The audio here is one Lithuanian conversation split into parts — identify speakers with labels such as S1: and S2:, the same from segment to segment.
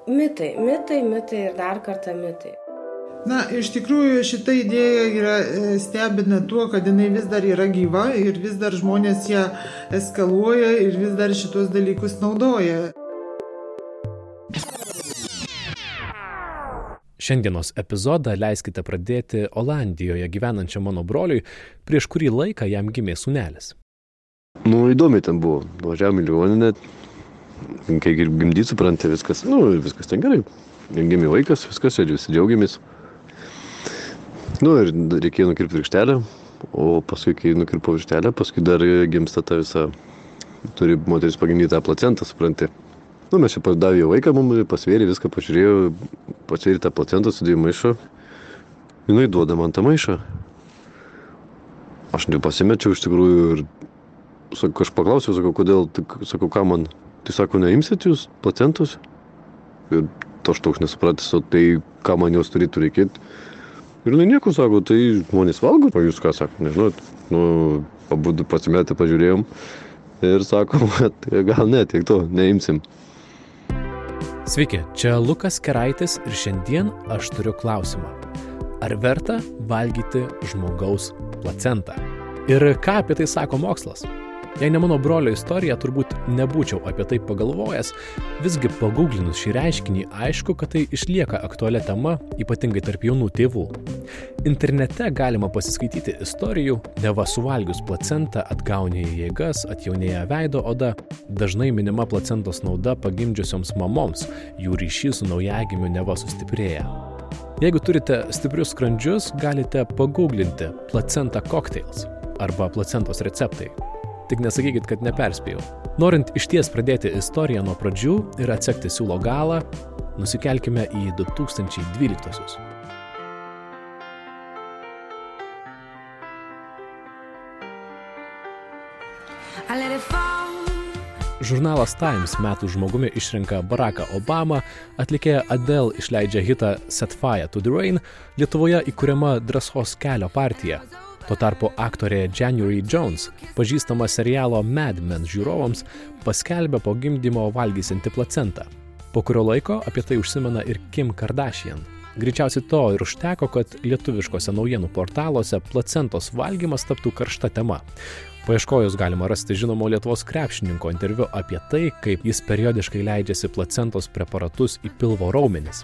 S1: Mitai ir dar kartą mitai.
S2: Na, iš tikrųjų šita idėja stebina tuo, kad jinai vis dar yra gyva ir vis dar žmonės ją eskaluoja ir vis dar šitos dalykus naudoja.
S3: Šiandienos epizodą leiskite pradėti Olandijoje gyvenančiam mano broliui, prieš kurį laiką jam gimė sūnelis.
S4: Įdomiai ten buvo. Važiavom į ligoninę, kai gimdyti supranti viskas. Viskas ten gerai. Gimė vaikas, viskas, visi džiaugiamės. Ir reikėjo nukirpti virkštelę, o paskui, kai nukirpo virkštelę, paskui dar gimsta ta visa, turi moteris pagimdyti tą placentą, supranti. Mes čia davė vaiką, mums pasvėrė, viską pažiūrėjo, pasvėrė tą placentą, sudėjo maišą. Jinai duoda man tą maišą. Aš nepasimečiau iš tikrųjų ir aš paklausiau, kodėl, sakau, ką man, tai sako, neimsit jūs placentus? Ir aš toks nesupratęs, o tai ką man jos turėtų reikėti. Ir nieko, sako, tai žmonės valgo, o jūs ką sako, nežinot. Pabudu pasimetę pažiūrėjom ir sakom, kad gal ne, tiek to, neimsim.
S3: Sveiki, čia Lukas Keraitis ir šiandien aš turiu klausimą. Ar verta valgyti žmogaus placentą? Ir ką apie tai sako mokslas? Jei ne mano brolio istorija, turbūt nebūčiau apie tai pagalvojęs, visgi paguglinus šį reiškinį aišku, kad tai išlieka aktualia tema, ypatingai tarp jaunų tėvų. Internete galima pasiskaityti istorijų, neva suvalgius placentą atgaunėja jėgas, atjaunėja veido oda, dažnai minima placentos nauda pagimdžiusioms mamoms, jų ryšys su naujagimiu neva sustiprėja. Jeigu turite stiprius skrandžius, galite paguglinti placenta cocktails arba placentos receptai. Tik nesakykit, kad neperspėjau. Norint išties pradėti istoriją nuo pradžių ir atsekti siūlo galą, nusikelkime į 2012-uosius. Žurnalas Times metų žmogumi išrenka Baracką Obamą, atlikėja Adele išleidžia hitą Set Fire to the Rain, Lietuvoje įkuriama Drąsos kelio partija. Tuo tarpu aktorė January Jones, pažįstama serialo Mad Men žiūrovams, paskelbė po gimdymo valgysianti placentą. Po kurio laiko apie tai užsimena ir Kim Kardashian. Greičiausiai to ir užteko, kad lietuviškose naujienų portaluose placentos valgymas taptų karšta tema. Paieškojus galima rasti žinomo Lietuvos krepšininko interviu apie tai, kaip jis periodiškai leidžiasi placentos preparatus į pilvo raumenis.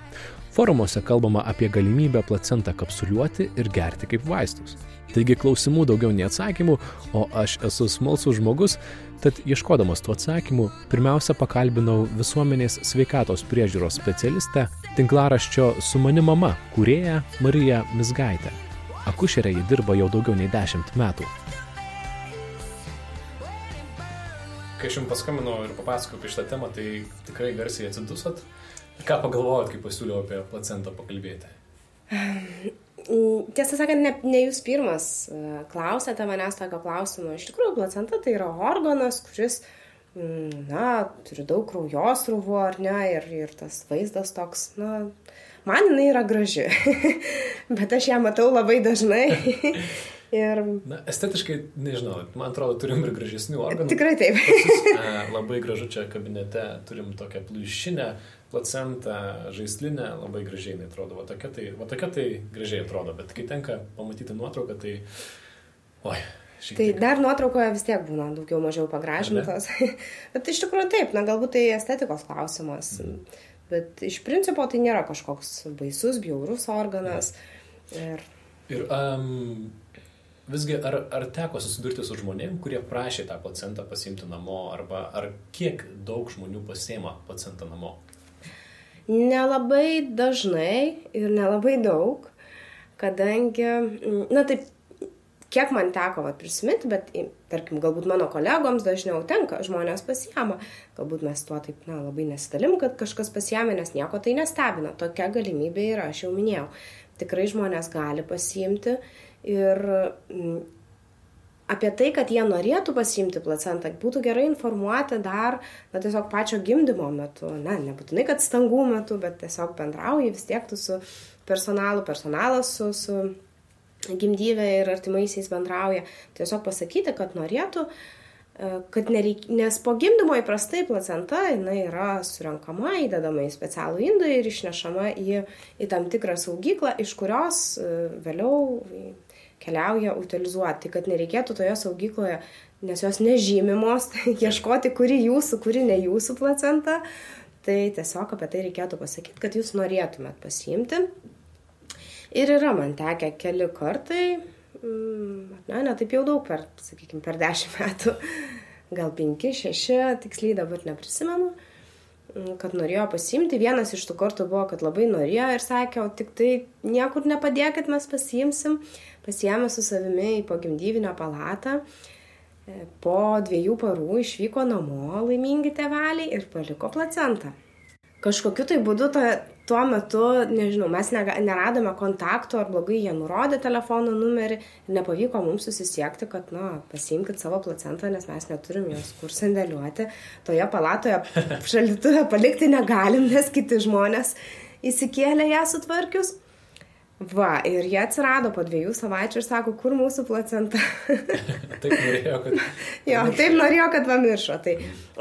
S3: Forumuose kalbama apie galimybę placentą kapsuliuoti ir gerti kaip vaistus. Taigi klausimų daugiau nei atsakymų, o aš esu smalsus žmogus, tad ieškodamas tų atsakymų, pirmiausia pakalbinau visuomenės sveikatos priežiūros specialistę, tinklaraščio Su mani mama kūrėją Mariją Mizgaitę. Akušerė ji dirba jau daugiau nei 10 metų. Kai aš jums paskambinau ir papasakojau apie šitą temą, tai tikrai garsiai atsidusot. Ką pagalvojot, kai pasiūliau apie placentą pakalbėti?
S1: Tiesą sakant, ne jūs pirmas klausėte manęs tokio klausimo. Iš tikrųjų, placenta tai yra organas, kuris, turi daug kraujosrūvų, ar ne, ir tas vaizdas toks, man jinai yra graži, bet aš ją matau labai dažnai.
S3: Estetiškai, nežinau, man atrodo, turim ir gražesnių organų.
S1: Tikrai taip.
S3: Labai gražu čia kabinete, turim tokią pliušinę placentą, žaislinę, labai gražiai atrodo. Va tokia tai gražiai atrodo, bet kai tenka pamatyti nuotrauką, tai...
S1: Tai dar nuotraukoje vis tiek būna daugiau mažiau pagražintos. Bet iš tikrųjų taip, galbūt tai estetikos klausimas. Bet iš principo tai nėra kažkoks baisus, bjaurus organas.
S3: Visgi, ar teko susidurti su žmonėm, kurie prašė tą placentą pasiimti namo, arba ar kiek daug žmonių pasiima placentą namo?
S1: Nelabai dažnai ir nelabai daug, kadangi, taip, kiek man teko prisiminti, bet, tarkim, galbūt mano kolegoms dažniau tenka, žmonės pasiima. Galbūt mes tuo taip, labai nesidalim, kad kažkas pasiėmė, nes nieko tai nestebina. Tokia galimybė yra, aš jau minėjau. Tikrai žmonės gali pasiimti. Ir apie tai, kad jie norėtų pasiimti placentą, būtų gerai informuoti dar, tiesiog pačio gimdymo metu. Nebūtinai, kad stangų metu, bet tiesiog bendrauji vis tiek tu su personalas su gimdyve ir artimaisiais bendrauja. Tiesiog pasakyti, kad norėtų kad nes po gimdymo įprastai placenta jinai yra surenkama, įdedama į specialų indą ir išnešama į tam tikrą saugyklą, iš kurios vėliau keliauja utilizuoti. Tai kad nereikėtų toje saugykloje, nes jos nežymimos, ieškoti, kuri jūsų, kuri ne jūsų placenta, tai tiesiog apie tai reikėtų pasakyti, kad jūs norėtumėt pasiimti. Ir yra man tekę keli kartai, ne taip jau daug per 10 metų, gal 5, 6, tiksliai dabar neprisimenu, kad norėjo pasiimti. Vienas iš tų kartų buvo, kad labai norėjo ir sakė, o tik tai niekur nepadėkit, mes pasiimsim. Pasiėmė su savimi į pogimdyvinę palatą. Po 2 parų išvyko namo laimingi tėveliai ir paliko placentą. Kažkokiu tai būdu tuo metu, nežinau, mes neradome kontakto ar blogai jie nurodė telefono numerį ir nepavyko mums susisiekti, kad, pasiimkit savo placentą, nes mes neturim jos kur sandėliuoti. Toje palatoje šaldytuve palikti negalim, nes kiti žmonės įsikėlė ją sutvarkius. Va, ir jie atsirado po 2 savaičių ir sako, kur mūsų placenta.
S3: Taip norėjo, kad...
S1: Jo, taip norėjo, kad pamiršo.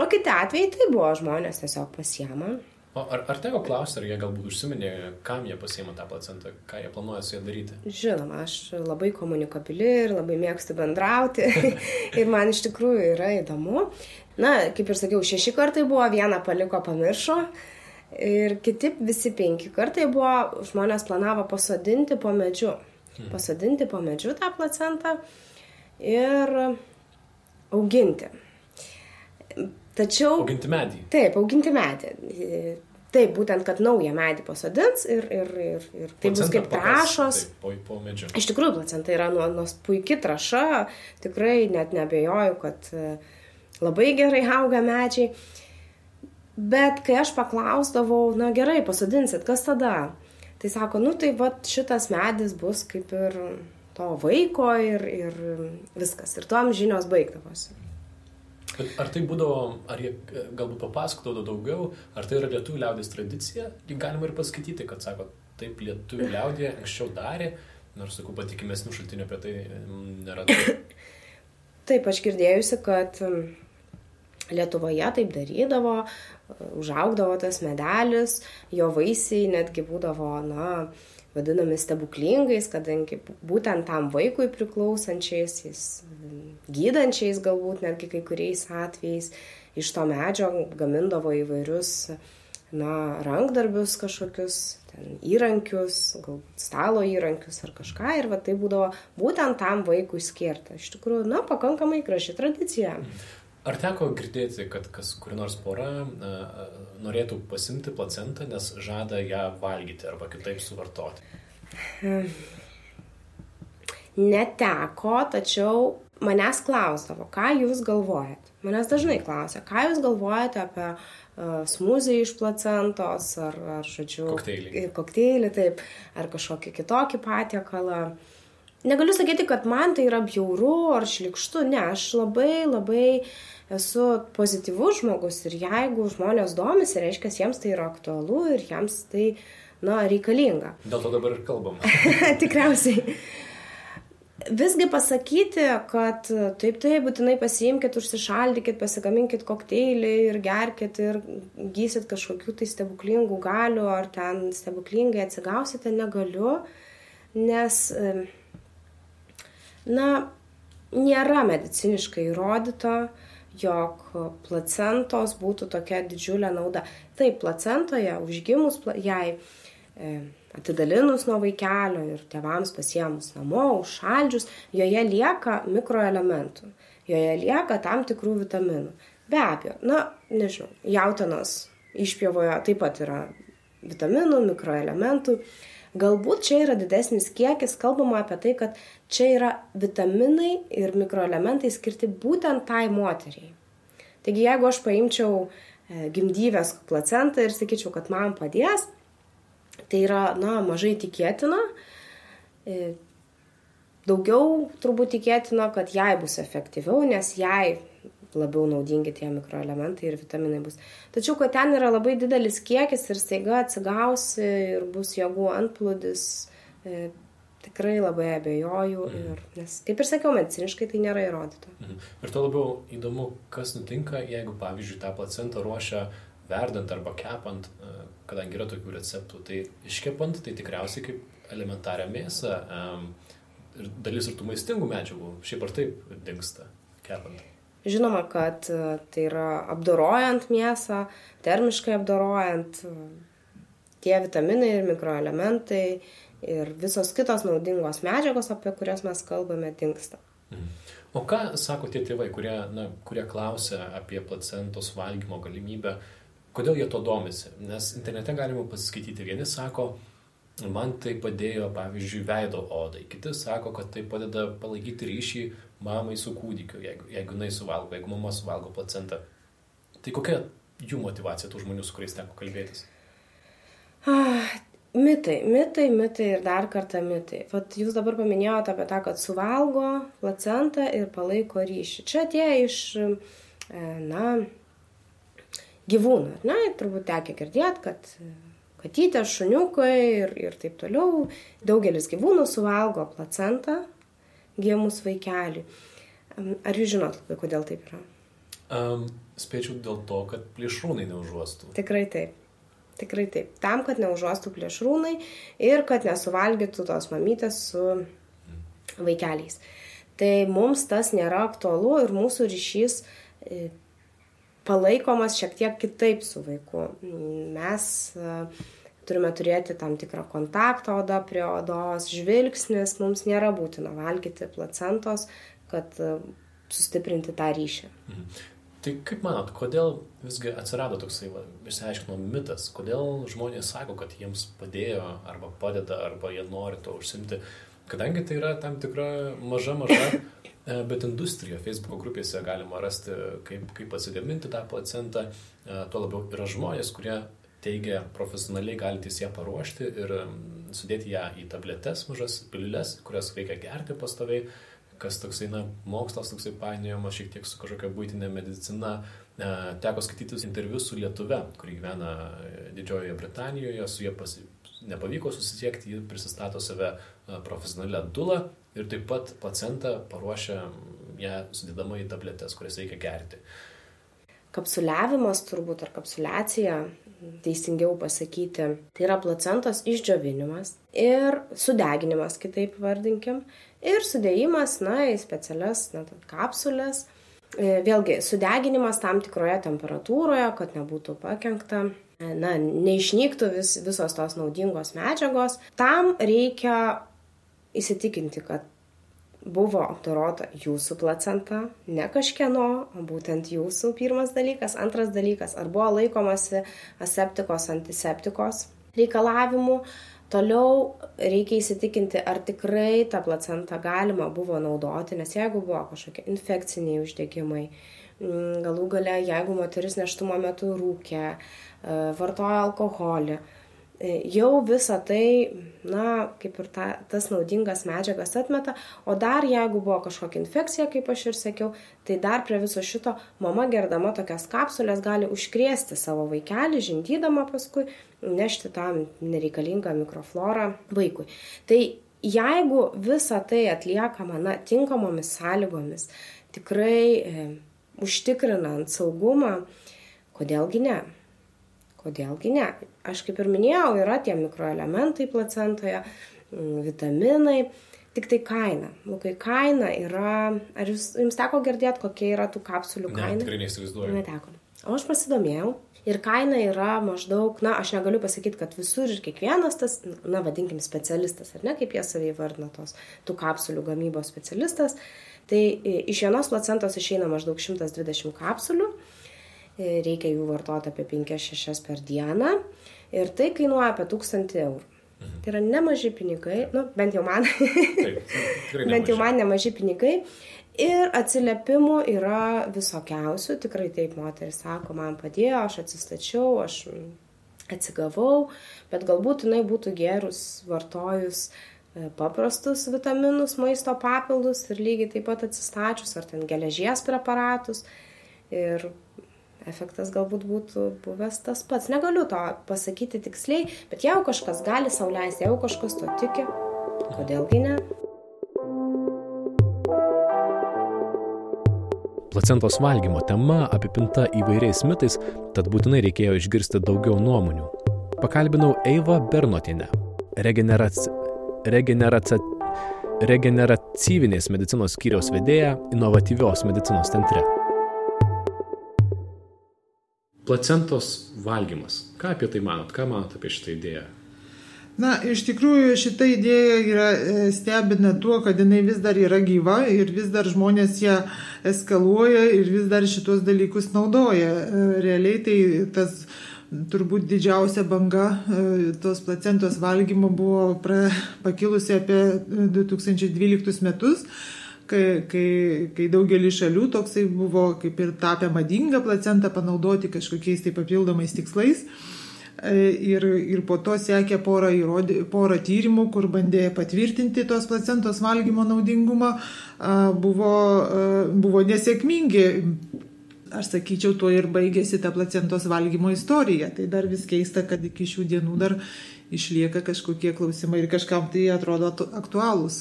S1: O kiti atvejai tai buvo, žmonės tiesiog pasiema.
S3: O ar teko klausti, ar jie galbūt užsiminė, kam jie pasiima tą placentą, ką jie planuoja su ją daryti?
S1: Žinoma, aš labai komunikabili ir labai mėgstu bendrauti ir man iš tikrųjų yra įdomu. Kaip ir sakiau, 6 kartai buvo, 1 paliko, pamiršo ir kiti visi 5 kartai buvo, žmonės planavo pasodinti po medžiu. Pasodinti po medžiu tą placentą ir auginti. Tačiau...
S3: Auginti medį.
S1: Taip, auginti medį. Taip, būtent, kad naują medį pasodins ir tai bus kaip trąšos.
S3: Taip, po medžiu.
S1: Iš tikrųjų, placenta yra puiki trąša, tikrai net neabejoju, kad labai gerai auga medžiai. Bet kai aš paklausdavau, gerai, pasodinsit, kas tada? Tai sako, tai šitas medis bus kaip ir to vaiko ir viskas. Ir tuom žinios baigdavosi.
S3: Ar tai būdavo, ar jie galbūt papasakodavo daugiau, ar tai yra lietuvių liaudės tradicija? Jį galima ir paskaityti, kad sako, taip lietuvių liaudė anksčiau darė, nors, sakau, patikimesnių šaltinių apie tai nėra.
S1: Taip, aš girdėjusi, kad Lietuvoje taip darydavo, užaugdavo tas medelis, jo vaisiai netgi būdavo, vadinami stebuklingais, kadangi būtent tam vaikui priklausančiais, gydančiais galbūt netgi kai kuriais atvejais, iš to medžio gamindavo įvairius rankdarbius kažkokius, įrankius, galbūt stalo įrankius ar kažką ir tai būdavo būtent tam vaikui skirta. Iš tikrųjų, pakankamai graži tradicija.
S3: Ar teko girdėti, kad kuri nors pora norėtų pasimti placentą, nes žada ją valgyti arba kitaip suvartoti?
S1: Neteko, tačiau manęs klausdavo, ką jūs galvojate. Manęs dažnai klausia, ką jūs galvojate apie smūzį iš placentos ar kokteilį, taip, ar kažkokį kitokį patiekalą. Negaliu sakyti, kad man tai yra bjauru ar šlykštu, ne, aš labai esu pozityvus žmogus ir jeigu žmonės domisi, reiškia, jiems tai yra aktualu ir jiems tai, reikalinga.
S3: Dėl to dabar ir kalbam.
S1: Tikriausiai. Visgi pasakyti, kad taip, būtinai pasiimkit, užsišaldykit, pasigaminkit kokteilį ir gerkit ir gysit kažkokių tai stebuklingų galių ar ten stebuklingai atsigausite, negaliu, nes... nėra mediciniškai įrodyta, jog placentos būtų tokia didžiulė nauda. Taip, placentoje užgimus jai atidalinus nuo vaikelio ir tėvams pasiėmus namo, užšaldžius, joje lieka mikroelementų, joje lieka tam tikrų vitaminų. Be abejo, nežinau, jautienos išpjovoje taip pat yra vitaminų, mikroelementų. Galbūt čia yra didesnis kiekis, kalbama apie tai, kad čia yra vitaminai ir mikroelementai skirti būtent tai moteriai. Taigi, jeigu aš paimčiau gimdyvės placentą ir sakyčiau, kad man padės, tai yra, mažai tikėtina. Daugiau turbūt tikėtina, kad jai bus efektyviau, nes jai labiau naudingi tie mikroelementai ir vitaminai bus. Tačiau, kad ten yra labai didelis kiekis ir staiga atsigausi ir bus jėgų antplūdis, Tikrai labai abejoju, nes, kaip ir sakiau, mediciniškai tai nėra įrodyta.
S3: Ir to labiau įdomu, kas nutinka, jeigu, pavyzdžiui, tą placentą ruošia verdant arba kepant, kadangi yra tokių receptų, tai iškepant, tai tikriausiai kaip elementarią mėsą ir dalis ir tų maistingų medžiagų šiaip ar taip dingsta kepant.
S1: Žinoma, kad tai yra apdorojant mėsą, termiškai apdorojant, tie vitaminai ir mikroelementai ir visos kitos naudingos medžiagos, apie kurias mes kalbame, dingsta.
S3: O ką sako tie tėvai, kurie klausia apie placentos valgymo galimybę, kodėl jie to domisi? Nes internete galima pasiskaityti, vieni sako, man tai padėjo, pavyzdžiui, veido odai, kiti sako, kad tai padeda palaikyti ryšį mamai su kūdikiu, jeigu jinai suvalgo, jeigu mama suvalgo placentą. Tai kokia jų motyvacija tų žmonių, su kuriais teko kalbėtis?
S1: Mitai ir dar kartą mitai. Vat jūs dabar paminėjote apie tą, kad suvalgo placentą ir palaiko ryšį. Čia atėjo iš, gyvūnų. Turbūt tekia girdėti, kad katytė, šuniukai ir taip toliau. Daugelis gyvūnų suvalgo placentą gimus vaikelį. Ar jūs žinot, kodėl taip yra?
S3: Spėčiau dėl to, kad plėšrūnai neužuostų.
S1: Tikrai taip. Tam, kad neužuostų plėšrūnai ir kad nesuvalgytų tos mamytės su vaikeliais. Tai mums tas nėra aktualu ir mūsų ryšys palaikomas šiek tiek kitaip su vaiku. Mes turime turėti tam tikrą kontaktą oda prie odos, žvilgsnis, mums nėra būtina valgyti placentos, kad sustiprinti tą ryšį.
S3: Tai kaip manot, kodėl visgi atsirado toksai, išsiaiškinom, mitas, kodėl žmonės sako, kad jiems padėjo arba padeda, arba jie nori to užsimti, kadangi tai yra tam tikra maža, bet industrija. Facebook grupėse galima rasti, kaip pasigaminti tą placentą, tuo labiau yra žmonės, kurie teigia profesionaliai galintys ją paruošti ir sudėti ją į tabletes mažas piliules, kurias reikia gerti pastoviai. Kas toksai, mokslas toksai painiojamas šiek tiek su kažkokia buitinė medicina. Teko skaitytis interviu su lietuve, kuri gyvena Didžiojoje Britanijoje, su jie nepavyko susisiekti, ji prisistato save profesionalią dulą ir taip pat placentą paruošia ją sudėdama į tabletes, kurias reikia gerti.
S1: Kapsuliavimas turbūt ar kapsuliacija, teisingiau pasakyti, tai yra placentos išdžiovinimas ir sudeginimas, kitaip vardinkim, ir sudėjimas į specialias kapsulės. Vėlgi, sudeginimas tam tikroje temperatūroje, kad nebūtų pakenkta, neišnyktų visos tos naudingos medžiagos. Tam reikia įsitikinti, kad buvo apdorota jūsų placenta, ne kažkieno, o būtent jūsų, pirmas dalykas. Antras dalykas, ar buvo laikomasi aseptikos, antiseptikos reikalavimų. Toliau reikia įsitikinti, ar tikrai tą placentą galima buvo naudoti, nes jeigu buvo kažkokie infekciniai uždegimai, galų gale, jeigu moteris nėštumo metu rūkė, vartojo alkoholį, jau visą tai, kaip ir tas naudingas medžiagas atmeta, o dar jeigu buvo kažkokia infekcija, kaip aš ir sakiau, tai dar prie viso šito mama gerdama tokias kapsulės gali užkrėsti savo vaikelį, žindydama paskui, nešti tą nereikalingą mikroflorą vaikui. Tai jeigu visą tai atliekama tinkamomis sąlygomis, tikrai užtikrinant saugumą, kodėlgi ne? Aš kaip ir minėjau, yra tie mikroelementai placentoje, vitaminai, tik tai kaina. Lukai, kaina yra, ar jums teko girdėti, kokia yra tų kapsulių kaina?
S3: Ne, tikrai neįsivaizduoju.
S1: Neteko. O aš pasidomėjau ir kaina yra maždaug, aš negaliu pasakyti, kad visur ir kiekvienas tas, vadinkim, specialistas, ar ne, kaip jie savai vardina tų kapsulių gamybos specialistas, tai iš vienos placentos išeina maždaug 120 kapsulių. Reikia jų vartoti apie 5-6 per dieną ir tai kainuoja apie 1000 eurų. Tai yra nemaži pinigai, bent jau man, nemaži pinigai ir atsiliepimų yra visokiausių, tikrai taip moteris sako, man padėjo, aš atsistačiau, aš atsigavau, bet galbūt jinai būtų gerus vartojus paprastus vitaminus, maisto papildus ir lygiai taip pat atsistačius, ar ten geležies preparatus ir efektas galbūt būtų buvęs tas pats. Negaliu to pasakyti tiksliai, bet jeigu kažkas gali sau leisti, jeigu kažkas to tiki, kodėlgi ne?
S3: Placentos valgymo tema apipinta įvairiais mitais, tad būtinai reikėjo išgirsti daugiau nuomonių. Pakalbinau Eivą Bernotienę, regeneratyvinės medicinos skyriaus vedėją inovatyvios medicinos centre. Placentos valgymas. Ką apie tai manot? Ką manot apie šitą idėją?
S2: Na, iš tikrųjų šita idėja yra stebina tuo, kad jinai vis dar yra gyva ir vis dar žmonės ją eskaluoja ir vis dar šitos dalykus naudoja. Realiai tai tas turbūt didžiausia banga tos placentos valgymo buvo pakilusi apie 2012 metus, kai daugelį šalių toksai buvo kaip ir tapę madinga placentą panaudoti kažkokiais tai papildomais tikslais. Ir po to sekė porą tyrimų, kur bandė patvirtinti tos placentos valgymo naudingumą, buvo nesėkmingi. Aš sakyčiau, tuo ir baigėsi ta placentos valgymo istorija. Tai dar vis keista, kad iki šių dienų dar išlieka kažkokie klausimai ir kažkam tai atrodo aktualūs.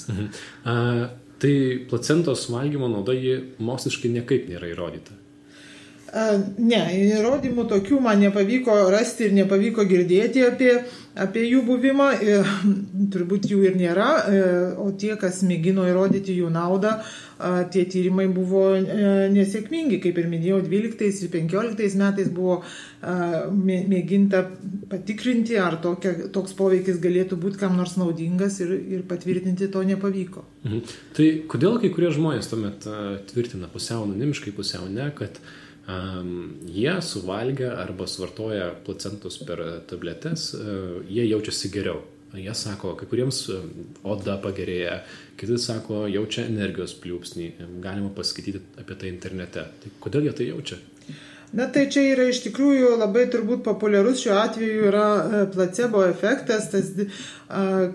S3: Tai placentos valgymo nauda moksliškai niekaip nėra įrodyta.
S2: Ne, įrodymų tokių man nepavyko rasti ir nepavyko girdėti apie jų buvimą, turbūt jų ir nėra, o tie, kas mėgino įrodyti jų naudą, tie tyrimai buvo nesėkmingi, kaip ir minėjau, 12 ir 15 metais buvo mėginta patikrinti, ar toks poveikis galėtų būti kam nors naudingas ir patvirtinti to nepavyko.
S3: Tai kodėl kai kurie žmonės tuomet tvirtina pusiau anonimiškai, pusiau ne, kad jie suvalgę arba suvartoja placentus per tabletes, jie jaučiasi geriau. Jie sako, kai kuriems oda pagerėja, kiti sako, jaučia energijos pliūpsnį, galima paskaityti apie tai internete. Tai kodėl jie tai jaučia?
S2: Na tai čia yra iš tikrųjų labai turbūt populiarus šiuo atveju yra placebo efektas,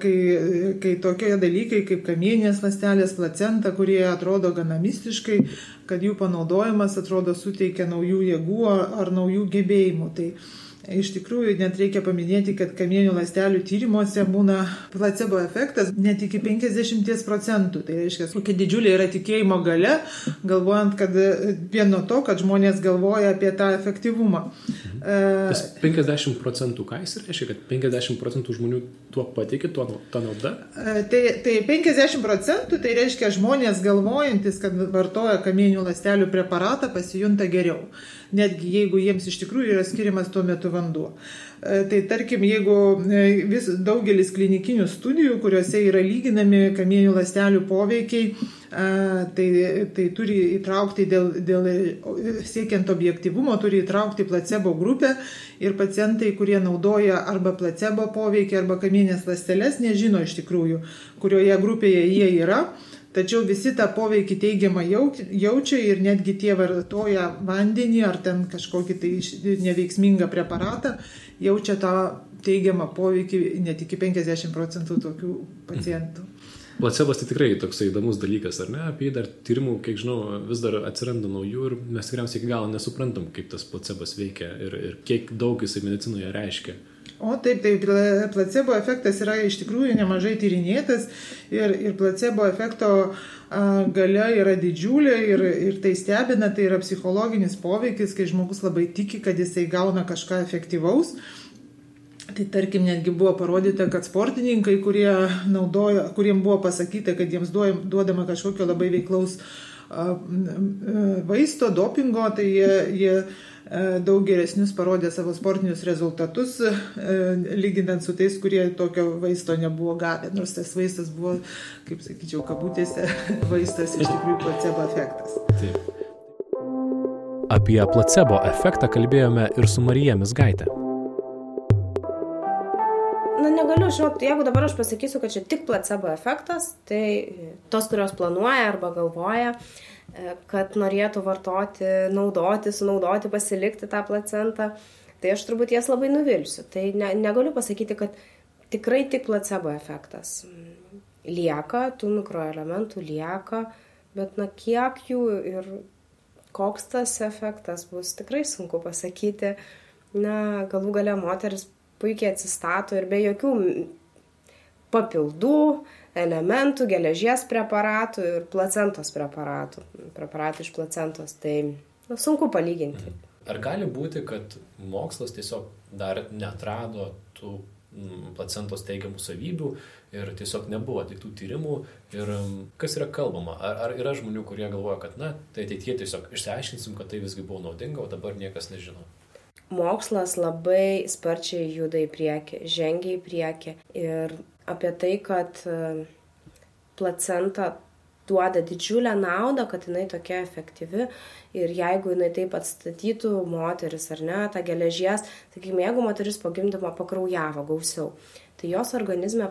S2: kai tokie dalykai kaip kamieninės ląstelės, placenta, kurie atrodo gana mistiškai, kad jų panaudojimas atrodo suteikia naujų jėgų ar naujų gebėjimų. Tai iš tikrųjų net reikia paminėti, kad kamieninių ląstelių tyrimuose būna placebo efektas net iki 50%. Tai reiškia, kokia didžiulė yra tikėjimo galia, galvojant, kad vien nuo to, kad žmonės galvoja apie tą efektyvumą.
S3: Tas 50%, ką jis reiškia, kad 50% žmonių tuo patikė, tą naudą?
S2: Tai 50% tai reiškia žmonės galvojantis, kad vartoja kamieninių ląstelių preparatą, pasijunta geriau. Netgi jeigu jiems iš tikrųjų yra skiriamas tuo metu vanduo. Tai tarkim, jeigu daugelis klinikinių studijų, kuriuose yra lyginami kamieninių ląstelių poveikiai, tai turi įtraukti siekiant objektyvumo, turi įtraukti placebo grupę ir pacientai, kurie naudoja arba placebo poveikį, arba kamieninės ląsteles, nežino iš tikrųjų, kurioje grupėje jie yra. Tačiau visi tą poveikį teigiamą jaučia ir netgi tie vartoja vandenį ar ten kažkokį tai neveiksmingą preparatą, jaučia tą teigiamą poveikį net iki 50% tokių pacientų.
S3: Placebas tai tikrai toksai įdomus dalykas, ar ne? Apie jį dar tyrimų, kiek žinau, vis dar atsiranda naujų ir mes tikriausiai iki galo nesuprantam, kaip tas placebas veikia ir kiek daug jisai medicinoje reiškia.
S2: O taip, placebo efektas yra iš tikrųjų nemažai tyrinėtas ir placebo efekto galia yra didžiulė ir tai stebina, tai yra psichologinis poveikis, kai žmogus labai tiki, kad jisai gauna kažką efektyvaus. Tai tarkim, netgi buvo parodyta, kad sportininkai, kuriem buvo pasakyta, kad jiems duodama kažkokio labai veiklaus vaisto, dopingo, tai jie daug geresnius parodė savo sportinius rezultatus, lyginant su tais, kurie tokio vaisto nebuvo gavę. Nors tas vaistas buvo, kaip sakyčiau, kabutėse vaistas, iš tikrųjų placebo efektas.
S3: Taip. Apie placebo efektą kalbėjome ir su Marija Mizgaite.
S1: Negaliu, jeigu dabar aš pasakysiu, kad čia tik placebo efektas, tai tos, kurios planuoja arba galvoja, kad norėtų vartoti, sunaudoti, pasilikti tą placentą, tai aš turbūt jas labai nuvilsiu. Tai negaliu pasakyti, kad tikrai tik placebo efektas lieka, tų mikroelementų lieka, bet kiek jų ir koks tas efektas bus, tikrai sunku pasakyti. Galų gale moteris puikiai atsistato ir be jokių papildų, elementų, geležies preparatų ir placentos preparatų iš placentos. Tai sunku palyginti.
S3: Ar gali būti, kad mokslas tiesiog dar neatrado tų placentos teigiamų savybių ir tiesiog nebuvo atliktų tyrimų ir kas yra kalbama? Ar yra žmonių, kurie galvoja, kad tai ateityje tiesiog išsiaiškinsim, kad tai visgi buvo naudinga, o dabar niekas nežino?
S1: Mokslas labai sparčiai juda į priekį, žengia į priekį ir apie tai, kad placenta duoda didžiulę naudą, kad jinai tokia efektyvi ir jeigu jinai taip atstatytų moteris ar ne, tą geležies, sakykime, jeigu moteris po gimdymo pakraujavo gausiau, tai jos organizme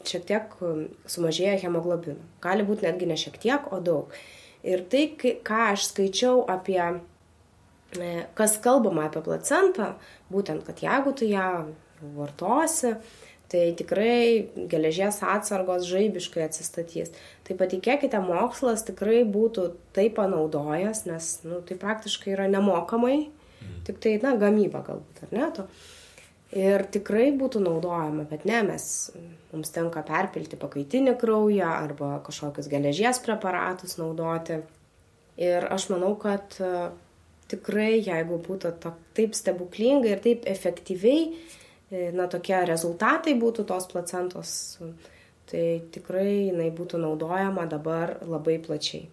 S1: šiek tiek sumažėja hemoglobino. Gali būti netgi ne šiek tiek, o daug. Ir tai, ką aš skaičiau apie, kas kalbama apie placentą, būtent, kad jeigu tu ją vartosi, tai tikrai geležies atsargos žaibiškai atsistatys. Tai patikėkite, mokslas tikrai būtų tai panaudojęs, nes tai praktiškai yra nemokamai, tik tai gamyba galbūt, ar ne? Ir tikrai būtų naudojama, bet ne, mums tenka perpilti pakaitinį kraują arba kažkokius geležies preparatus naudoti. Ir aš manau, kad tikrai, jeigu būtų taip stebuklingai ir taip efektyviai, tokie rezultatai būtų tos placentos, tai tikrai jinai būtų naudojama dabar labai plačiai.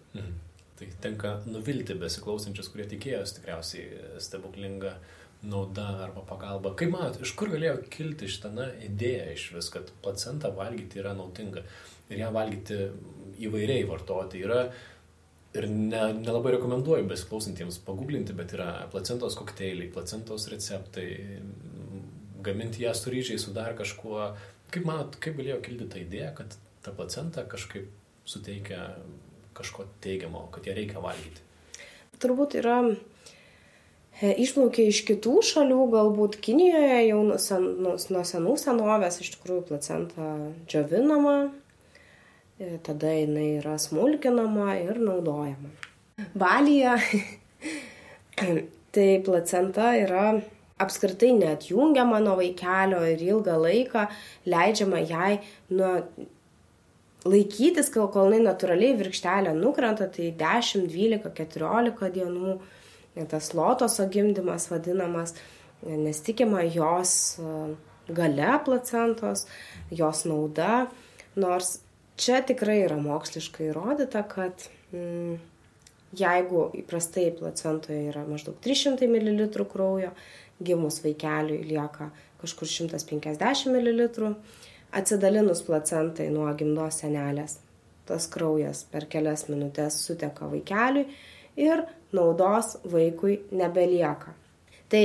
S3: Tai tenka nuvilti besiklausančius, kurie tikėjosi tikriausiai stebuklingą naudą arba pagalbą. Kaip manot, iš kur galėjo kilti šitą idėją iš vis, kad placentą valgyti yra naudinga ir ją valgyti įvairiai vartoti yra. Ir nelabai rekomenduoju besiklausantiems paguglinti, bet yra placentos kokteiliai, placentos receptai, gaminti ją su ryžiais, su dar kažkuo. Kaip manot, kaip galėjo kilti ta idėja, kad ta placenta kažkaip suteikia kažko teigiamo, kad ją reikia valgyti?
S1: Turbūt yra išplaukia iš kitų šalių, galbūt Kinijoje jau nuo senų senovės iš tikrųjų placenta džiovinama, tada jinai yra smulkinama ir naudojama. Balyje tai placenta yra apskritai neatjungiama nuo vaikelio ir ilgą laiką leidžiama jai laikytis, kol jinai natūraliai virkštelė nukrenta, tai 10, 12, 14 dienų, tas lotoso gimdymas vadinamas, nes tikima jos gale placentos, jos nauda, nors čia tikrai yra moksliškai įrodyta, kad jeigu įprastai placentoje yra maždaug 300 ml kraujo, gimus vaikeliui lieka kažkur 150 ml, atsidalinus placentai nuo gimdos senelės, tas kraujas per kelias minutės suteka vaikeliui ir naudos vaikui nebelieka. Tai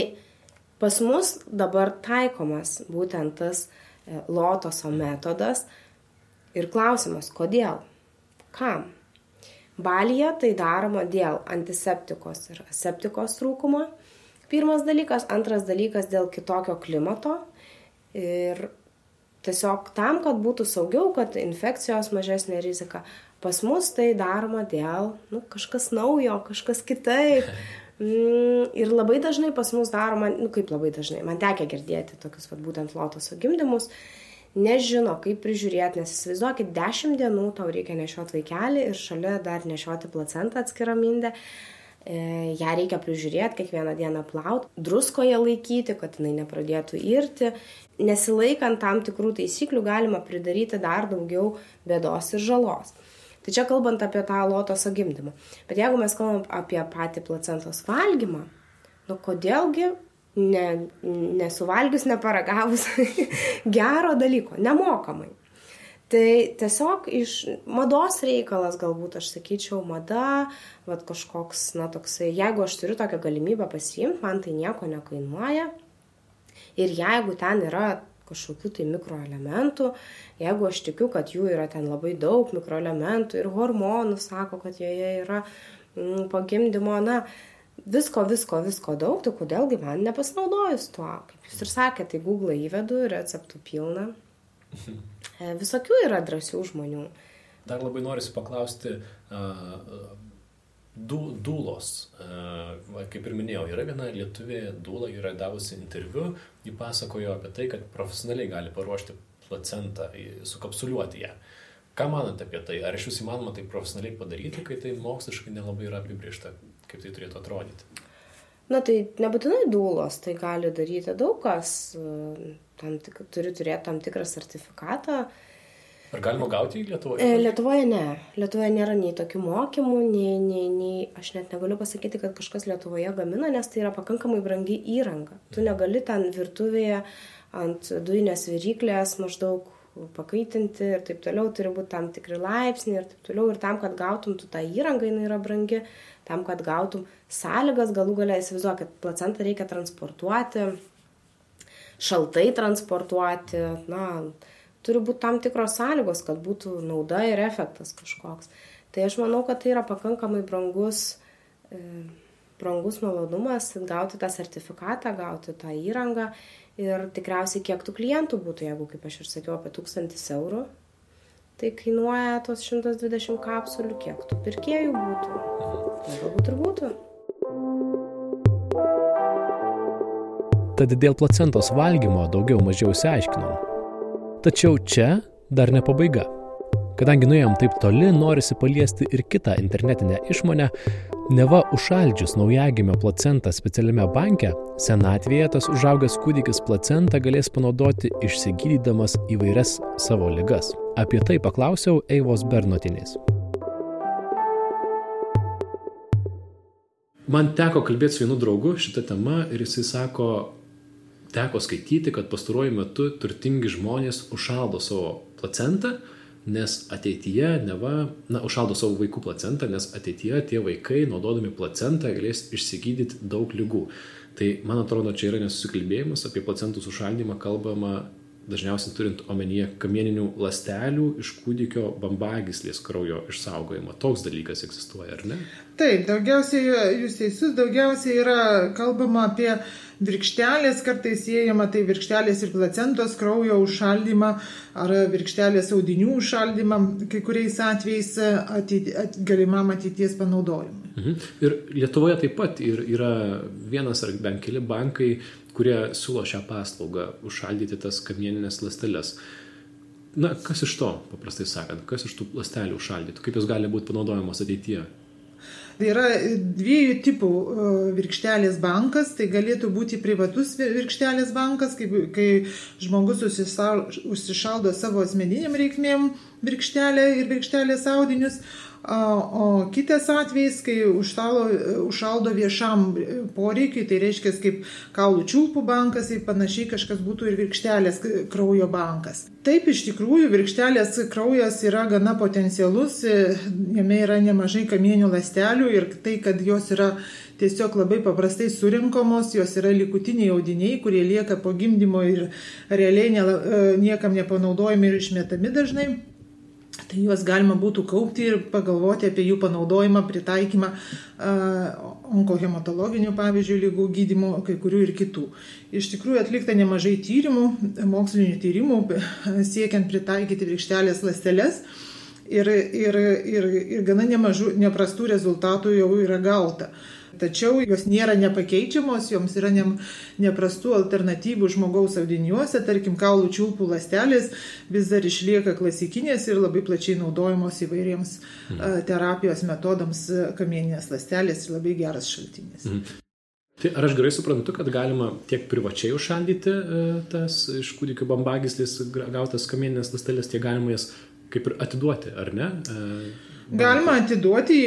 S1: pas mus dabar taikomas būtent tas lotoso metodas ir klausimas, kodėl? Kam? Balyje tai daroma dėl antiseptikos ir aseptikos trūkumo. Pirmas dalykas, antras dalykas dėl kitokio klimato ir tiesiog tam, kad būtų saugiau, kad infekcijos mažesnė rizika. Pas mus tai daroma dėl kažkas naujo, kažkas kitaip. Ir labai dažnai pas mus daroma, kaip labai dažnai, man tekia girdėti tokius būtent lotoso gimdymus, nežino, kaip prižiūrėti, nes įsivaizduokit, 10 dienų tau reikia nešioti vaikelį ir šalia dar nešioti placentą atskirą mindę. Ją reikia prižiūrėti, kiekvieną dieną plauti, druskoje laikyti, kad jinai nepradėtų irti. Nesilaikant tam tikrų taisyklių galima pridaryti dar daugiau bėdos ir žalos. Tai čia kalbant apie tą lotoso gimdymą. Bet jeigu mes kalbam apie patį placentos valgymą, kodėlgi nesuvalgius, neparagavus gero dalyko, nemokamai. Tai tiesiog iš mados reikalas, galbūt aš sakyčiau, mada, kažkoks, toksai, jeigu aš turiu tokią galimybę pasiimti, man tai nieko nekainuoja. Ir jeigu ten yra kažkokių tai mikroelementų, jeigu aš tikiu, kad jų yra ten labai daug mikroelementų ir hormonų, sako, kad joje yra po gimdymo, visko daug, tai kodėlgi man nepasinaudojus tuo. Kaip jūs ir sakėte, tai Google įvedu, receptų pilna. Visokių yra drąsių žmonių.
S3: Dar labai norisi paklausti dūlos. Kaip ir minėjau, yra viena lietuvė dūla, yra davusi interviu, ji pasakojo apie tai, kad profesionaliai gali paruošti placentą, sukapsuliuoti ją. Ką manote apie tai? Ar iš vis įmanoma tai profesionaliai padaryti, kai tai moksliškai nelabai yra apibrėžta, kaip tai turėtų atrodyti?
S1: Na tai nebūtinai dūlos, tai gali daryti daug kas, turi turėti tam tikrą sertifikatą.
S3: Ar galima gauti į Lietuvoje?
S1: Lietuvoje ne. Lietuvoje nėra nei tokių mokymų, nei aš net negaliu pasakyti, kad kažkas Lietuvoje gamina, nes tai yra pakankamai brangi įranga. Tu negali ten virtuvėje ant dujinės viryklės maždaug pakaitinti ir taip toliau, turi būti tam tikri laipsniai ir taip toliau. Ir tam, kad gautum tu tą įrangą, jinai yra brangi, tam, kad gautum sąlygas, galų galia įsivaizduok, kad placentą reikia transportuoti, šaltai transportuoti, turi būti tam tikros sąlygos, kad būtų nauda ir efektas kažkoks. Tai aš manau, kad tai yra pakankamai brangus malonumas gauti tą sertifikatą, gauti tą įrangą. Ir tikriausiai kiek tų klientų būtų, jeigu, kaip aš ir sakiau, apie 1000 eurų, tai kainuoja tos 120 kapsulių, kiek tų pirkėjų būtų. Galbūt ir būtų.
S3: Tad dėl placentos valgymo daugiau mažiau išsiaiškinom. Tačiau čia dar ne pabaiga. Kadangi nuėjom taip toli, norisi paliesti ir kitą internetinę išmonę, neva užšaldžius naujagimio placentą specialiame banke, senatvėje tas užaugęs kūdikis placentą galės panaudoti išsigydydamas įvairias savo ligas. Apie tai paklausiau Eivos Bernotienės. Man teko kalbėti su vienu draugu šitą temą ir jisai sako, teko skaityti, kad pastaruoju metu turtingi žmonės užšaldo savo placentą, nes ateityje užšaldo savo vaikų placentą, nes ateityje tie vaikai, naudodami placentą, galės išsigydyti daug ligų. Tai, man atrodo, čia yra nesusikalbėjimas, apie placentų sušaldymą kalbama dažniausiai turint omenyje kamieninių ląstelių iš kūdikio bambagyslės kraujo išsaugojimą. Toks dalykas egzistuoja, ar ne?
S2: Taip, jūs teisus, daugiausiai yra kalbama apie virkštelės, kartais siejama tai virkštelės ir placentos kraujo užšaldymą ar virkštelės audinių užšaldymą, kai kuriais atvejais galimam ateities panaudojimui.
S3: Ir Lietuvoje taip pat yra vienas ar bent keli bankai, kurie siūlo šią paslaugą užšaldyti tas kamieninės ląsteles. Kas iš to, paprastai sakant, kas iš tų ląstelių užšaldytų, kaip jos gali būti panaudojamos ateityje?
S2: Tai yra dviejų tipų virkštelės bankas, tai galėtų būti privatus virkštelės bankas, kai žmogus užsišaldo savo asmeniniam reikmėm virkštelę ir virkštelės audinius, o kitas atvejis, kai užšaldo viešam poreikiui, tai reiškia kaip kaulų čiulpų bankas, tai panašiai kažkas būtų ir virkštelės kraujo bankas. Taip, iš tikrųjų, virkštelės kraujas yra gana potencialus, jame yra nemažai kamieninių ląstelių ir tai, kad jos yra tiesiog labai paprastai surinkomos, jos yra likutiniai audiniai, kurie lieka po gimdymo ir realiai niekam nepanaudojami ir išmetami dažnai. Tai juos galima būtų kaupti ir pagalvoti apie jų panaudojimą, pritaikymą onkohematologinių, pavyzdžiui, ligų gydymo, kai kurių ir kitų. Iš tikrųjų atlikta nemažai tyrimų, mokslinių tyrimų, siekiant pritaikyti virkštelės ląsteles ir gana neprastų rezultatų jau yra gauta. Tačiau jos nėra nepakeičiamos, joms yra neprastų alternatyvų žmogaus audiniuose, tarkim, kaulų čiulpų ląstelės vis dar išlieka klasikinės ir labai plačiai naudojamos įvairiems terapijos metodams kamieninės ląstelės ir labai geras šaltinis.
S3: Tai ar aš gerai suprantu, kad galima tiek privačiai užšaldyti tas iš kūdikio bambagyslės gautas kamieninės ląstelės, tiek galima jas kaip ir atiduoti, ar ne?
S2: Galima atiduoti,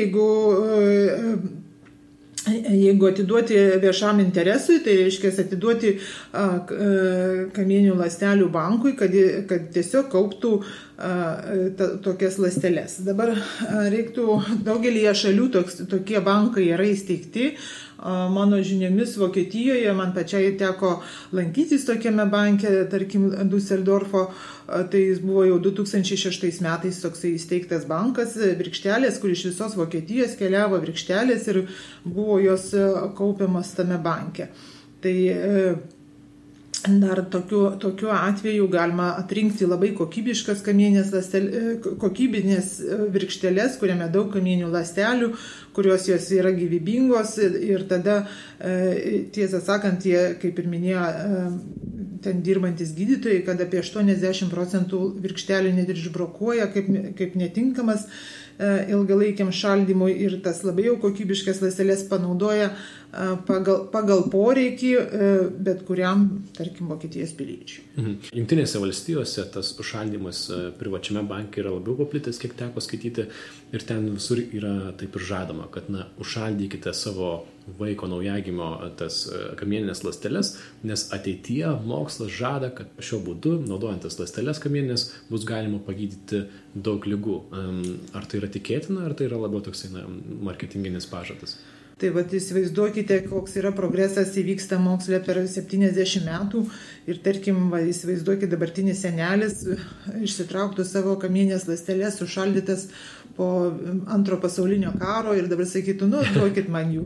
S2: jeigu atiduoti viešam interesui, tai reiškia atiduoti kamieninių ląstelių bankui, kad tiesiog kauptų tokias ląsteles. Dabar reiktų daugelyje šalių tokie bankai yra įsteigti. Mano žiniomis Vokietijoje man pačiai teko lankytis tokiame banke, tarkim, Düsseldorfo, tai jis buvo jau 2006 metais toksai įsteigtas bankas, virkštelės, kur iš visos Vokietijos keliavo virkštelės ir buvo jos kaupiamas tame banke. Tai dar tokiu atveju galima atrinkti labai kokybiškas kokybinės virkšteles, kuriame daug kamieninių ląstelių, kurios jos yra gyvybingos ir tada, tiesą sakant, kaip ir minėjo, ten dirbantis gydytojai, kad apie 80% virkštelių net ir išbrokuoja kaip netinkamas ilgalaikiam šaldymui ir tas labai jau kokybiškas ląsteles panaudoja pagal poreikį bet kuriam, tarkim, Vokietijos piliečiui.
S3: Jungtinėse valstijose tas užšaldymas privačiame banke yra labiau paplitęs, kiek teko skaityti, ir ten visur yra taip ir žadama, kad užšaldykite savo vaiko naujagimio tas kamieninės ląsteles, nes ateityje mokslas žada, kad šiuo būdu, naudojant tas ląsteles kamieninės, bus galima pagydyti daug ligų. Ar tai yra tikėtina, ar tai yra labiau toksai marketinginis pažadas?
S2: Tai įsivaizduokite, koks yra progresas įvyksta moksle per 70 metų ir tarkim, įsivaizduokite, dabartinis senelis išsitrauktų savo kamieninės ląsteles sušaldytas po antro pasaulinio karo ir dabar sakytų, duokit man jų.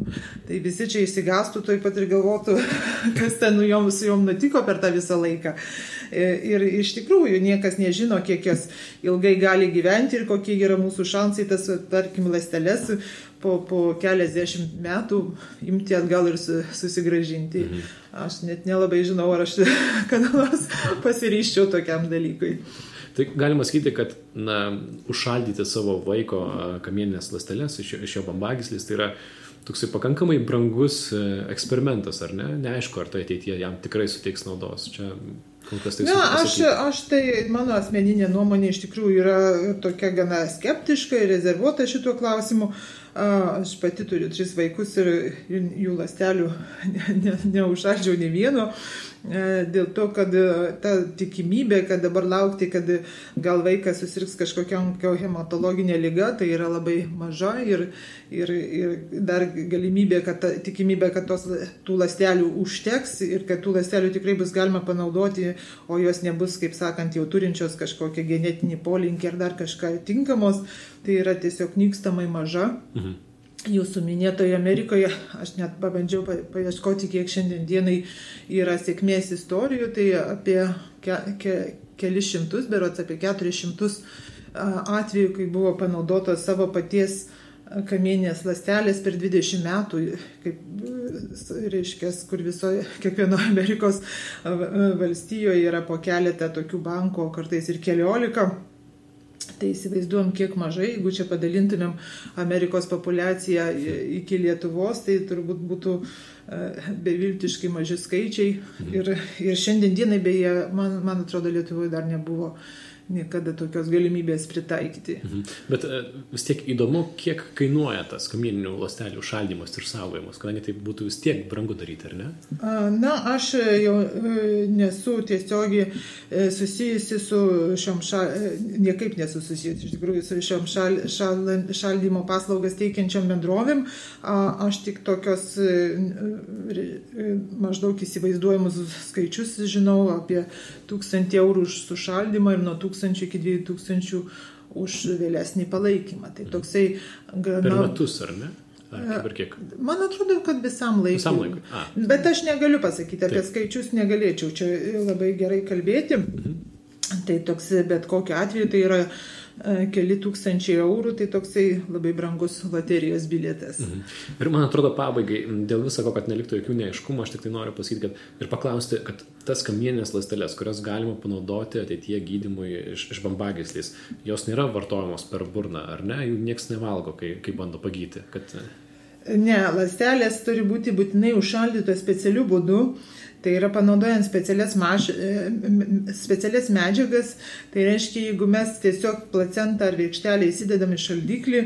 S2: Tai visi čia įsigastų tuoj pat ir galvotų, kas ten su jom nutiko per tą visą laiką. Ir iš tikrųjų niekas nežino, kiek jos ilgai gali gyventi ir kokie yra mūsų šansai tas, tarkim, ląsteles po keliasdešimt metų imti atgal ir susigrąžinti. Aš net nelabai žinau, ar aš kada nors pasiryščiau tokiam dalykui.
S3: Tai galima sakyti, kad užšaldyti savo vaiko kamieninės ląsteles iš jo bambagyslės, tai yra toksai pakankamai brangus eksperimentas, ar ne? Neaišku, ar tai ateityje jam tikrai suteiks naudos. Čia kol kas tai
S2: aš tai, mano asmeninė nuomonė iš tikrųjų yra tokia gana skeptiška ir rezervuota šituo klausimu. Aš pati turiu 3 vaikus ir jų ląstelių neužšaldžiau nei vieno. Dėl to, kad ta tikimybė, kad dabar laukti, kad gal vaikas susirgs kažkokiam hematologinė liga, tai yra labai maža ir dar galimybė, tikimybė, kad tų ląstelių užteks ir kad tų ląstelių tikrai bus galima panaudoti, o jos nebus, kaip sakant, jau turinčios kažkokią genetinį polinkį ar dar kažką tinkamos, tai yra tiesiog nykstamai maža. Jūsų minėtoje Amerikoje, aš net pabandžiau paieškoti, kiek šiandien dienai yra sėkmės istorijų, tai apie kelis šimtus, berods apie 400 atvejų, kai buvo panaudotos savo paties kamieninės ląstelės per 20 metų, kaip reiškia, kur kiekvienoje Amerikos valstijoje yra po keletą tokių bankų, kartais ir 14. Tai įsivaizduojam, kiek mažai, jeigu čia padalintumėm Amerikos populiaciją iki Lietuvos, tai turbūt būtų beviltiškai maži skaičiai. Ir šiandien dienai, beje, man atrodo, Lietuvoje dar nebuvo niekada tokios galimybės pritaikyti.
S3: Bet vis tiek įdomu, kiek kainuoja tas kamieninių ląstelių šaldymas ir saugojimas, kadangi tai būtų vis tiek brangu daryti, ar ne?
S2: Aš jau nesu tiesiogiai susijusi su šiom niekaip nesu susijusi, iš tikrųjų, su šiom šaldymo paslaugas teikiančiom bendrovėm. Aš tik tokios maždaug įsivaizduojamus skaičius žinau apie 1000 eurų už sušaldymą ir nuo 1000 iki 2000 už vėlesnį palaikymą. Tai toksai
S3: per metus, ar ne? Ar kiek?
S2: Man atrodo, kad visam laikui. Bet aš negaliu pasakyti, apie skaičius negalėčiau čia labai gerai kalbėti. Tai toks, bet kokiu atveju tai yra keli tūkstančiai eurų, tai toksai labai brangus loterijos bilietas.
S3: Ir man atrodo pabaigai, dėl visako, kad neliktų jokių neaiškumų, aš tik tai noriu pasakyti, ir paklausti, kad tas kamieninės ląsteles, kurias galima panaudoti ateityje gydymui iš bambagyslės, jos nėra vartojamos per burną, ar ne? Jų nieks nevalgo, kai bando pagyti.
S2: Ne, ląstelės turi būti būtinai užšaldytos specialiu būdu. Tai yra panaudojant specialias medžiagas, tai reiškia, jeigu mes tiesiog placentą ar virkštelę įsidedam į šaldiklį,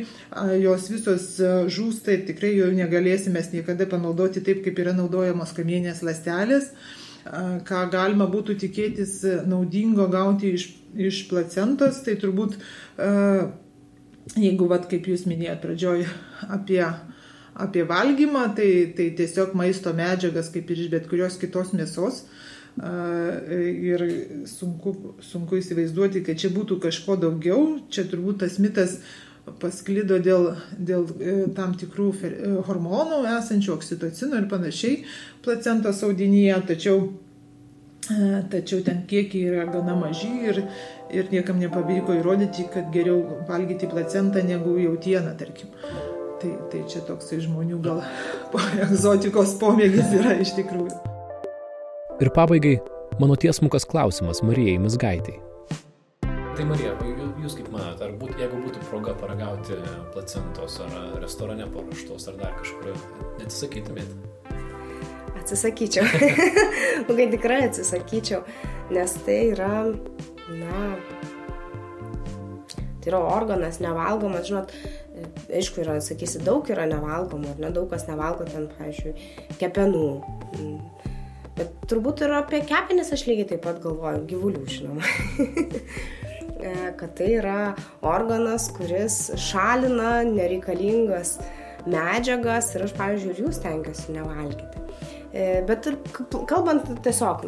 S2: jos visos žūsta ir tikrai jau negalėsime niekada panaudoti taip, kaip yra naudojamos kamieninės ląstelės. Ką galima būtų tikėtis naudingo gauti iš placentos, tai turbūt, jeigu, kaip jūs minėjot pradžioj, apie valgymą, tai tiesiog maisto medžiagas, kaip ir iš bet kurios kitos mėsos. Ir sunku įsivaizduoti, kad čia būtų kažko daugiau. Čia turbūt tas mitas pasklido dėl tam tikrų hormonų esančių, oksitocino ir panašiai placentos audinyje, tačiau ten kiekiai yra gana maži ir niekam nepavyko įrodyti, kad geriau valgyti placentą negu jautieną, tarkim. Tai čia toksai žmonių gal egzotikos pomėgis yra iš tikrųjų.
S3: Ir pabaigai, Mano tiesmukas klausimas Marijai Mizgaitei. Tai Marija, jūs kaip manote, jeigu būtų proga paragauti placentos ar restorane paruoštos ar dar kažkur, neatsisakytumėte?
S1: Atsisakyčiau. Kai tikrai atsisakyčiau, nes tai yra, tai yra organas nevalgomas, žinot, aišku, sakysi, daug yra nevalgoma, ar ne, daug kas nevalgo ten, pavyzdžiui, kepenų. Bet turbūt ir apie kepenis aš lygiai taip pat galvoju, gyvulių, žinoma. Kad tai yra organas, kuris šalina nereikalingas medžiagas ir aš, pavyzdžiui, ir jų stengiuosi nevalgyti. Bet ir kalbant tiesiog,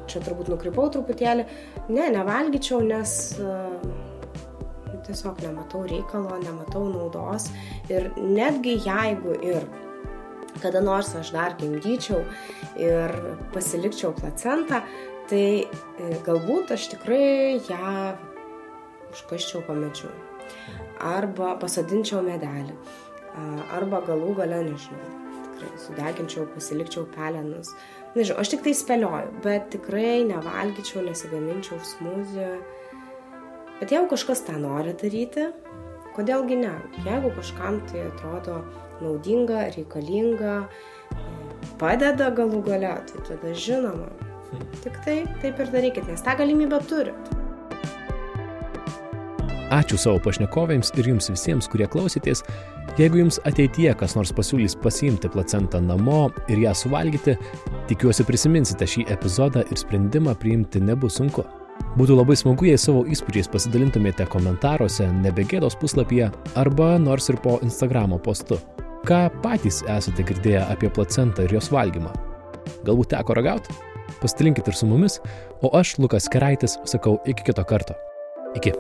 S1: čia turbūt nukrypau truputėlį, nevalgyčiau, nes tiesiog nematau reikalo, nematau naudos ir netgi jeigu ir kada nors aš dar gimdyčiau ir pasilikčiau placentą, tai galbūt aš tikrai ją užkasčiau po medžiu arba pasodinčiau medelį arba galų gale, nežinau, sudeginčiau, pasilikčiau pelenus. Nežinau, aš tik tai spėlioju, bet tikrai nevalgyčiau, nesigaminčiau smūzį. Bet jeigu kažkas tą nori daryti, kodėlgi ne? Jeigu kažkam tai atrodo naudinga, reikalinga, padeda galų gale, tai tada žinoma. Tik tai taip ir darykit, nes tą galimybę turit.
S3: Ačiū savo pašnekovėms ir jums visiems, kurie klausėtės. Jeigu jums ateityje kas nors pasiūlys pasiimti placentą namo ir ją suvalgyti, tikiuosi prisiminsite šį epizodą ir sprendimą priimti nebus sunku. Būtų labai smagu, jei savo įspūdžiais pasidalintumėte komentaruose Nebegėdos puslapyje arba nors ir po Instagramo postu. Ką patys esate girdėję apie placentą ir jos valgymą? Galbūt teko ragauti? Pasidalinkit ir su mumis, o aš, Lukas Keraitis, sakau iki kito karto. Iki.